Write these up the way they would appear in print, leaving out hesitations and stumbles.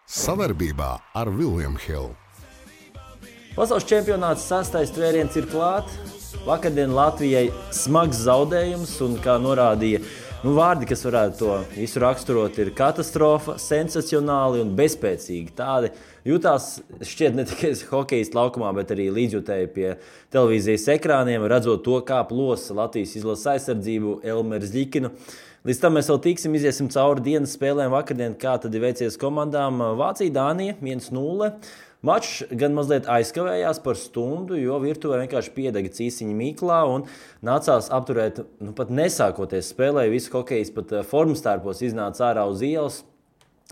Savarbībā ar William Hill. Pasaules čempionāts 6. tvēriens ir klāt. Vakardien Latvijai smags zaudējums, un kā norādīja vārdi, kas varētu to visu raksturot, ir katastrofa, sensacionāli un bezspēcīgi. Tādi jutās šķiet ne tikai hokejisti laukumā, bet arī līdzjutēji pie televīzijas ekrāniem, redzot to, kā plosa Latvijas izlases aizsardzību Elmeru Zļikinu. Līdz tam mēs vēl iziesim cauri dienas spēlēm vakardien, kā tad ir veicies komandām. Vācija, Dānija 1-0. Mačs gan mazliet aizkavējās par stundu, jo virtuvē vienkārši piedega cīsiņa Mīklā un nācās apturēt, pat nesākoties spēlē. Visi hokejisti pat formas tērpos iznāca ārā uz ielas.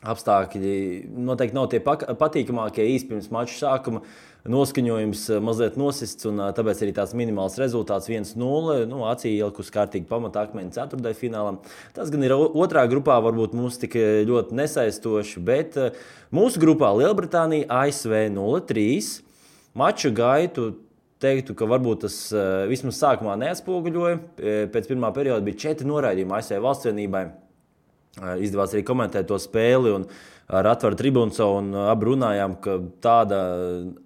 Apstākļi noteikti nav tie patīkamākie īsti pirms mača sākuma. Noskaņojums mazliet nosists, un tāpēc arī tāds minimāls rezultāts 1-0. Acī ielikus kārtīgi pamata akmeņi ceturtdaļfinālam. Tas gan ir otrā grupā, varbūt mums tik ļoti nesaistoši, bet mūsu grupā Lielbritānija ASV 0-3. Maču gaitu teiktu, ka varbūt tas vismaz sākumā neatspoguļoja. Pēc pirmā perioda bija 4 noraidījumi ASV valstsvienībai. Izdevās arī komentēt to spēli un ar atvaru tribūnu un abi runājām, ka tāda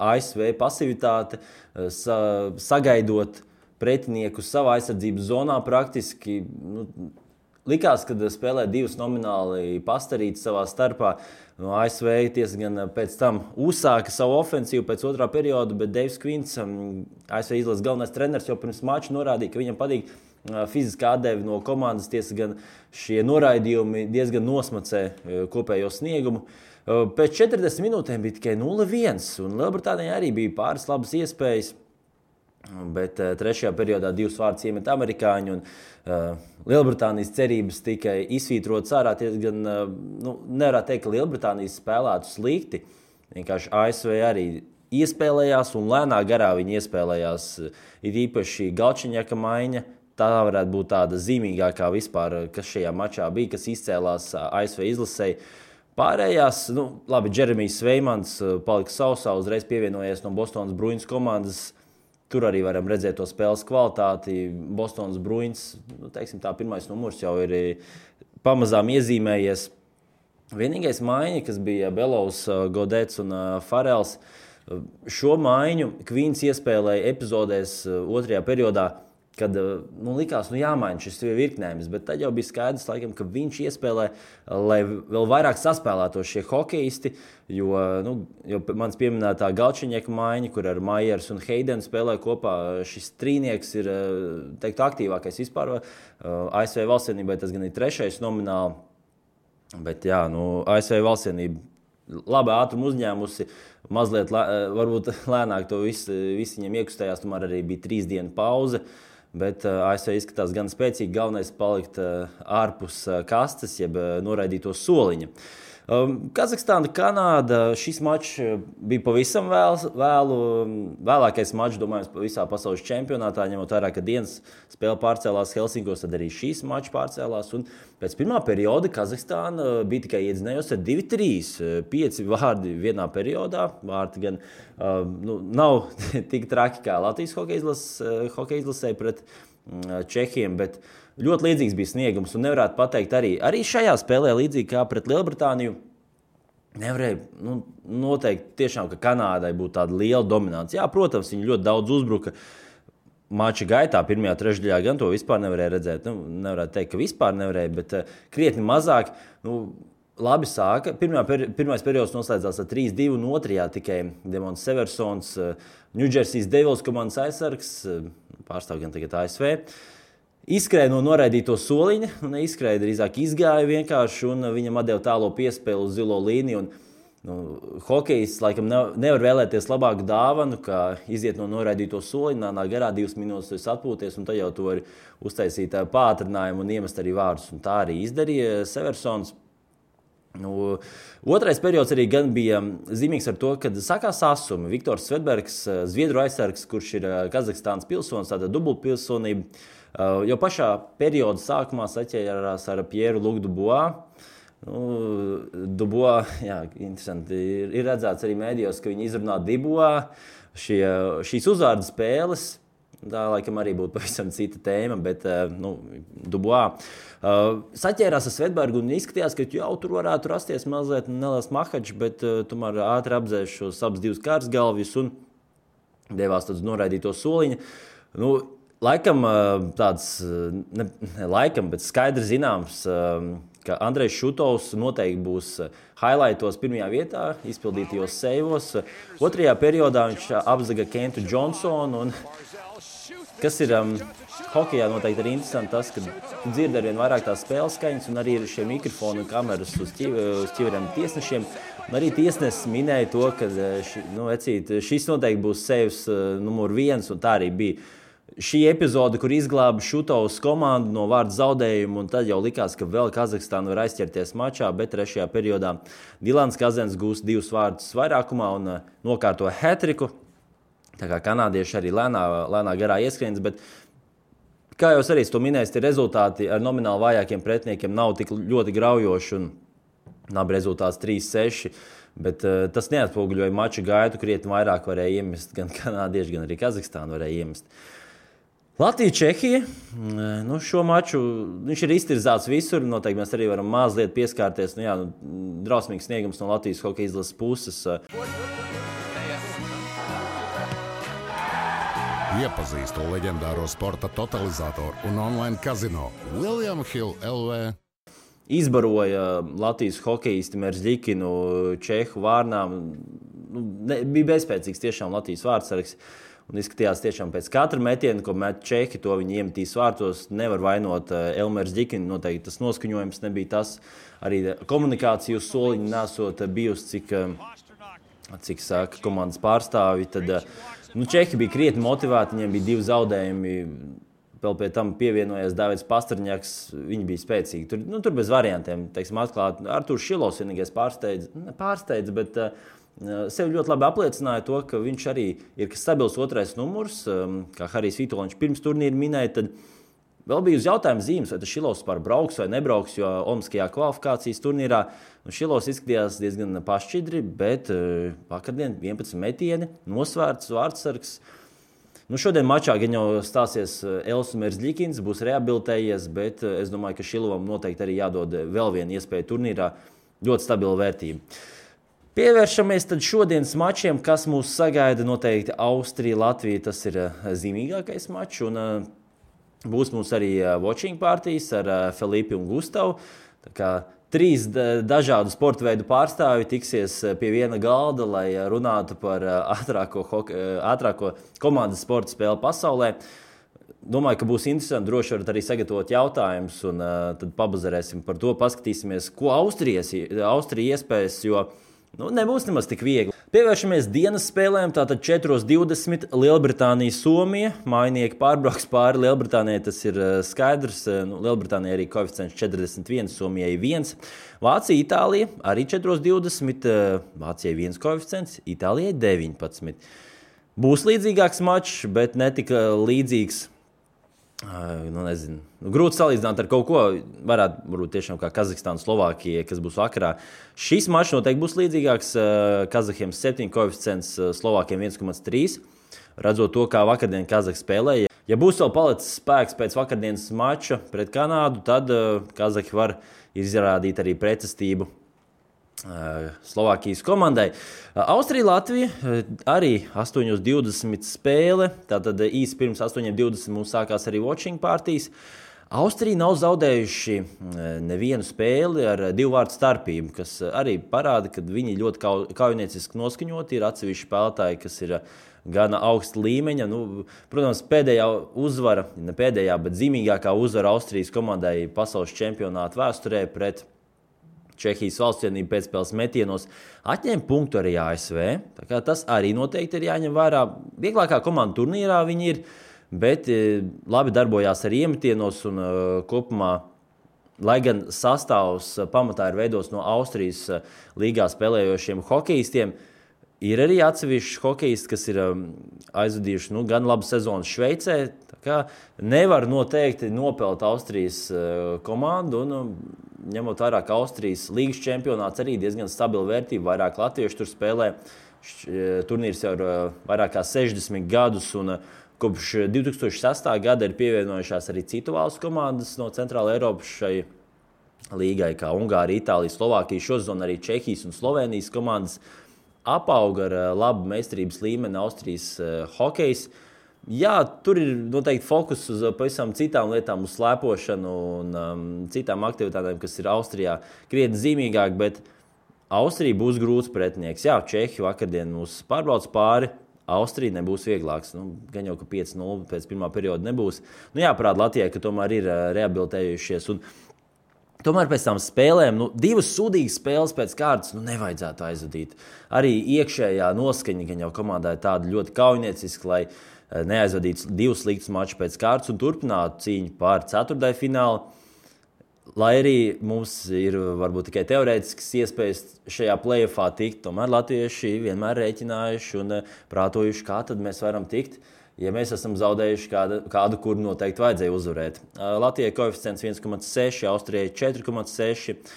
ASV pasivitāte, sagaidot pretinieku savā aizsardzības zonā praktiski, likās, kad spēlē divas nomināli pastarītas savā starpā. ASV diezgan pēc tam uzsāka savu ofensīvu pēc otrā perioda, bet Deivs Kvints, ASV izlases galvenais treneris, jau pirms mača norādīja, ka viņam patīk fiziskā atdeve no komandas, tiesa gan šie noraidījumi diezgan nosmacē kopējo sniegumu. Pēc 40 minūtēm bija tikai 0-1, un Lielbritānijai arī bija pāris labas iespējas, bet trešajā periodā 2 vārdus iemet amerikāņi, un Lielbritānijas cerības tikai izsvītrotas ārā. Gan nevarētu teikt, ka Lielbritānijas spēlētu slikti, vienkārši ASV arī iespēlējās, un lēnā garā viņi iespēlējās, ir īpaši Galčiņaka maiņa. Tā varētu būt tāda zīmīgākā vispār, kas šajā mačā bija, kas izcēlās ASV izlasei. Pārējās, labi, Džeremijs Sveimans palika sausā, uzreiz pievienojies no Bostonas Bruins komandas. Tur arī varam redzēt to spēles kvalitāti. Bostonas Bruins, teiksim tā, pirmais numurs jau ir pamazām iezīmējies. Vienīgais maiņa, kas bija Belovs, Godets un Farels, šo maiņu Kvīns iespēlēja epizodēs otrajā periodā, kad likās, jāmaina šis virknējums, bet tad jau bija skaidrs, laikam, ka viņš iespēlē, lai vēl vairāk saspēlētos šie hokejisti, jo mans pieminētā Galčiņeka maiņa, kur ar Maiers un Heidenu spēlē kopā, šis trīnieks ir, teiktu, aktīvākais vispār. ASV valstsienībai tas gan ir 3. nomināli, bet ASV valstsienība labi ātrumu uzņēmusi, mazliet varbūt lēnāk to visi viņiem iekustējās, tomēr arī bija 3 dienu pauze. Bet ASV izskatās gan spēcīgi, galvenais palikt ārpus kastes, jeb noraidīto soliņa. Kazahstāna, Kanāda, šis mačs bija pavisam vēlākais mačs, domājams, visā pasaules čempionātā, ņemot vērā, ka dienas spēle pārcēlās Helsinkos, tad arī šīs mačs pārcēlās. Un pēc pirmā perioda Kazahstāna bija tikai iedzinējusi ar 2-3, 5 vārdi vienā periodā. Vārti gan nav tik traki kā Latvijas hokeja izlasē pret Čehiem, bet ļoti līdzīgs bija sniegums, un nevarētu pateikt arī šajā spēlē, līdzīgi kā pret Lielbritāniju, nevarēja noteikt tiešām, ka Kanādai būtu tāda liela dominance. Jā, protams, viņi ļoti daudz uzbruka mača gaitā, pirmajā trešdaļā gan to vispār nevarēja redzēt. Nevarētu teikt, ka vispār nevarēja, bet krietni mazāk. Labi sāka. Pirmais periods noslēdzās ar 3-2, un otrajā tikai Demons Seversons, Ņūdžersijas Devils komandas aizsargs, pārstāv gan tagad ASV, izskrēja no noraidīto soliņa, neizskrēja, drīzāk izgāja vienkārši, un viņam atdeva tālo piespēli uz zilo līniju. Hokejists laikam nevar vēlēties labāku dāvanu, kā iziet no noraidīto soliņa, nāk garā 2 minūtes atpūties, un tad jau to var uztaisīt pātrinājumu un iemest arī vārdus. Un tā arī izdarīja Seversons. Otrais periods arī gan bija zīmīgs ar to, kad sakās asumi. Viktors Svedbergs, Zviedru aizsargs, kurš ir Kazahstānas pilsonis, tāda dubultpilsonība, jau pašā perioda sākumā saķērās ar Pieru Luc Dubois. Dubois, jā, interesanti, ir redzēts arī mēdījos, ka viņi izrunā Dubois. Šīs uzvārdu spēles Tā laikam arī būtu pavisam cita tēma, bet Dubois saķērās ar Svedbergu un izskatījās, ka jau tur varētu rasties mazliet neliels mahačs, bet tomēr ātri apdzēs šos abas divas kārsgalvjus un devās tāds noraidīto soliņu. Laikam tāds, bet skaidri zināms, ka Andrejs Šutovs noteikti būs highlightos pirmajā vietā, izpildītajos seivos. Otrajā periodā viņš apzaga Kentu Johnsonu. Kas ir hokejā noteikti arī interesanti tas, ka dzird arvien vairāk tās spēles skaņas un arī ir šie mikrofoni un kameras uz ķiveriem tiesnešiem. Un arī tiesnesis minēja to, ka šis noteikti būs seivs numur 1 un tā arī bija. Šī epizode, kur izglāba Šutovs komandu no vārdu zaudējumu, un tad jau likās, ka vēl Kazahstāna var aizķerties mačā, bet trešajā periodā Dilans Kazens gūst 2 vārdus vairākumā un nokārto hat-triku. Tā kā kanādieši arī lēnā garā ieskrienas, bet kā jau arī to minējis, tie rezultāti ar nomināli vājākiem pretiniekiem nav tik ļoti graujoši un nav rezultāts 3-6. Bet tas neatspoguļoja maču gaitu, krietni vairāk varēja iemest gan kanādieši, gan arī Kazahstāna varēja iemest. Latvija-Čehija. Šo maču viņš ir iztirzāts visur. Noteikti mēs arī varam mazliet pieskārties. Drausmīgs sniegums no Latvijas hokeja izlases puses. Iepazīstu leģendāro sporta totalizatoru un online kazino William Hill LV. Izbaroja Latvijas hokeisti Merzļikinu Čehu vārnām. Bija bezspēcīgs tiešām Latvijas vārdsargs. Un izskatījās tiešām pēc katra metiena, ko met Čehi, to viņi iemetīs vārtos. Nevar vainot Elmers Ģikinu, noteikti tas noskaņojums nebija tas. Arī komunikācija uz soliņa nesot bijusi, cik saka komandas pārstāvi. Tad Čehi bija krietni motivēti, viņiem bija 2 zaudējumi. Vēl pie tam pievienojies Davids Pastrņaks, viņi bija spēcīgi. Tur bez variantiem, teiksim, atklāt. Artūrs Šilovs vienīgais pārsteidz, bet sevi ļoti labi apliecināja to, ka viņš arī ir stabils 2. numurs, kā Harijs Vitoļņš pirms turnīra minēja, tad vēl bija uz jautājumu zīmes, vai tas Šilovs brauks vai nebrauks, jo Olimpiskajā kvalifikācijas turnīrā Šilovs izskatījās diezgan pašķidri, bet vakardien 11 metieni, nosvērts vārdsargs. Šodien mačā gan jau stāsies Elsu Merzļikins, būs rehabilitējies, bet es domāju, ka Šilovam noteikti arī jādod vēl viena iespēja turnīrā, ļoti stabila vērtība. Pievēršamies tad šodienas mačiem, kas mūs sagaida noteikti Austrija, Latvija, tas ir zīmīgākais mačs, un būs mums arī watching partijas ar Felipi un Gustavu. Tā kā 3 dažādu sporta veidu pārstāvi tiksies pie viena galda, lai runātu par ātrāko komandas sporta spēli pasaulē. Domāju, ka būs interesanti, droši varat arī sagatavot jautājumus, un tad pabazarēsim par to, paskatīsimies, ko Austrija iespējas, jo nebūs nemaz tik viegli. Pievēršamies dienas spēlēm, tātad 4:20 Lielbritānija, Somija. Mājinieki pārbrauks pāri Lielbritānijai, tas ir skaidrs. Lielbritānijai arī koeficients 41, Somijai 1. Vācija, Itālija arī 4:20, Vācijai 1 koeficients, Itālijai 19. Būs līdzīgāks mačs, bet ne tik līdzīgs. Grūti salīdzināt ar kaut ko, varētu būt tiešām kā Kazahstāna, Slovākija, kas būs vakarā. Šis mačs noteikti būs līdzīgāks. Kazahiem 7 koeficients, Slovākiem 1,3. Redzot to, kā vakardien Kazahi spēlēja. Ja būs vēl palicis spēks pēc vakardienas mača pret Kanādu, tad Kazahi var izrādīt arī pretestību Slovākijas komandai. Austrija, Latvija arī 8:20 spēle. Tātad īsi pirms 8:20 mums sākās arī watching partijas. Austrija nav zaudējuši nevienu spēli ar 2 vārdu starpību, kas arī parāda, ka viņi ļoti kaujinieciski noskaņoti. Ir atsevišķi spēlētāji, kas ir gana augsta līmeņa. Protams, pēdējā uzvara, ne pēdējā, bet zīmīgākā uzvara Austrijas komandai pasaules čempionāta vēsturē pret Čehijas valstsvienību pēcspēles metienos atņēma punktu arī ASV. Tā kā tas arī noteikti ir jāņem vērā. Vieglākā komanda turnīrā viņi ir, bet labi darbojās arī iemetienos un kopumā, lai gan sastāvs pamatā ir veidos no Austrijas līgā spēlējošiem hokejistiem, ir arī atsevišķi hokejisti, kas ir aizvadījuši gan labu sezonu Šveicē. Tā kā nevar noteikti nopelt Austrijas komandu un ņemot vērā, ka Austrijas līgas čempionāts arī diezgan stabila vērtība, vairāk latviešu tur spēlē. Turnīrs jau ir vairāk kā 60 gadus, un Kopš 2006. gada ir pievienojušās arī citu valstu komandas no Centrāla Eiropas šai līgai, kā Ungārija, Itālija, Slovākija. Šosezon arī Čehijas un Slovenijas komandas apauga ar labu meistarības līmeni Austrijas hokejs. Jā, tur ir noteikti fokus uz pavisam citām lietām, uz slēpošanu un citām aktivitātēm, kas ir Austrijā krietni zīmīgāk, bet Austrija būs grūts pretinieks. Jā, Čehi vakardien mūs pārbrauc pāri. Austrija nebūs vieglāks. Gan jau, ka 5-0 pēc pirmā perioda nebūs. Jāparāda Latvijai, ka tomēr ir rehabilitējušies. Un tomēr pēc tam spēlēm, 2 sūdīgas spēles pēc kārtas nevajadzētu aizvadīt. Arī iekšējā noskaņa gan jau komandai tāda ļoti kaujinieciska, lai neaizvadītu 2 sliktus mačus pēc kārtas un turpinātu cīņu pār ceturtdaļfinālu. Lai arī mums ir varbūt tikai teorētiskas iespējas šajā play-offā tikt, tomēr latvieši vienmēr rēķinājuši un prātojuši, kā tad mēs varam tikt, ja mēs esam zaudējuši kādu, kuru noteikti vajadzēja uzvarēt. Latvijai koeficients 1,6, Austrijai 4,6.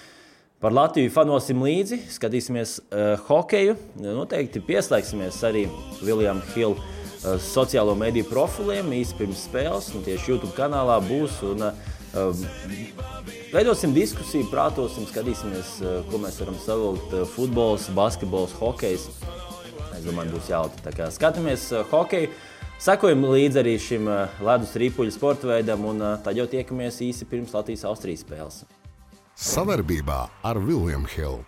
Par Latviju fanosim līdzi, skatīsimies hokeju. Noteikti pieslēgsimies arī William Hill sociālo mediju profiliem īsi pirms spēles. Tieši YouTube kanālā būs un veidosim diskusiju, prātosim, skatīsimies, ko mēs varam savilkt. Futbols, basketbols, hokejs. Es domāju, būs jautri. Tā kā skatāmies hokeju, sekojam līdzi arī šim ledus ripuļu sporta veidam un tad jau tiekamies īsi pirms Latvijas-Austrijas spēles. Savarbībā ar William Hill.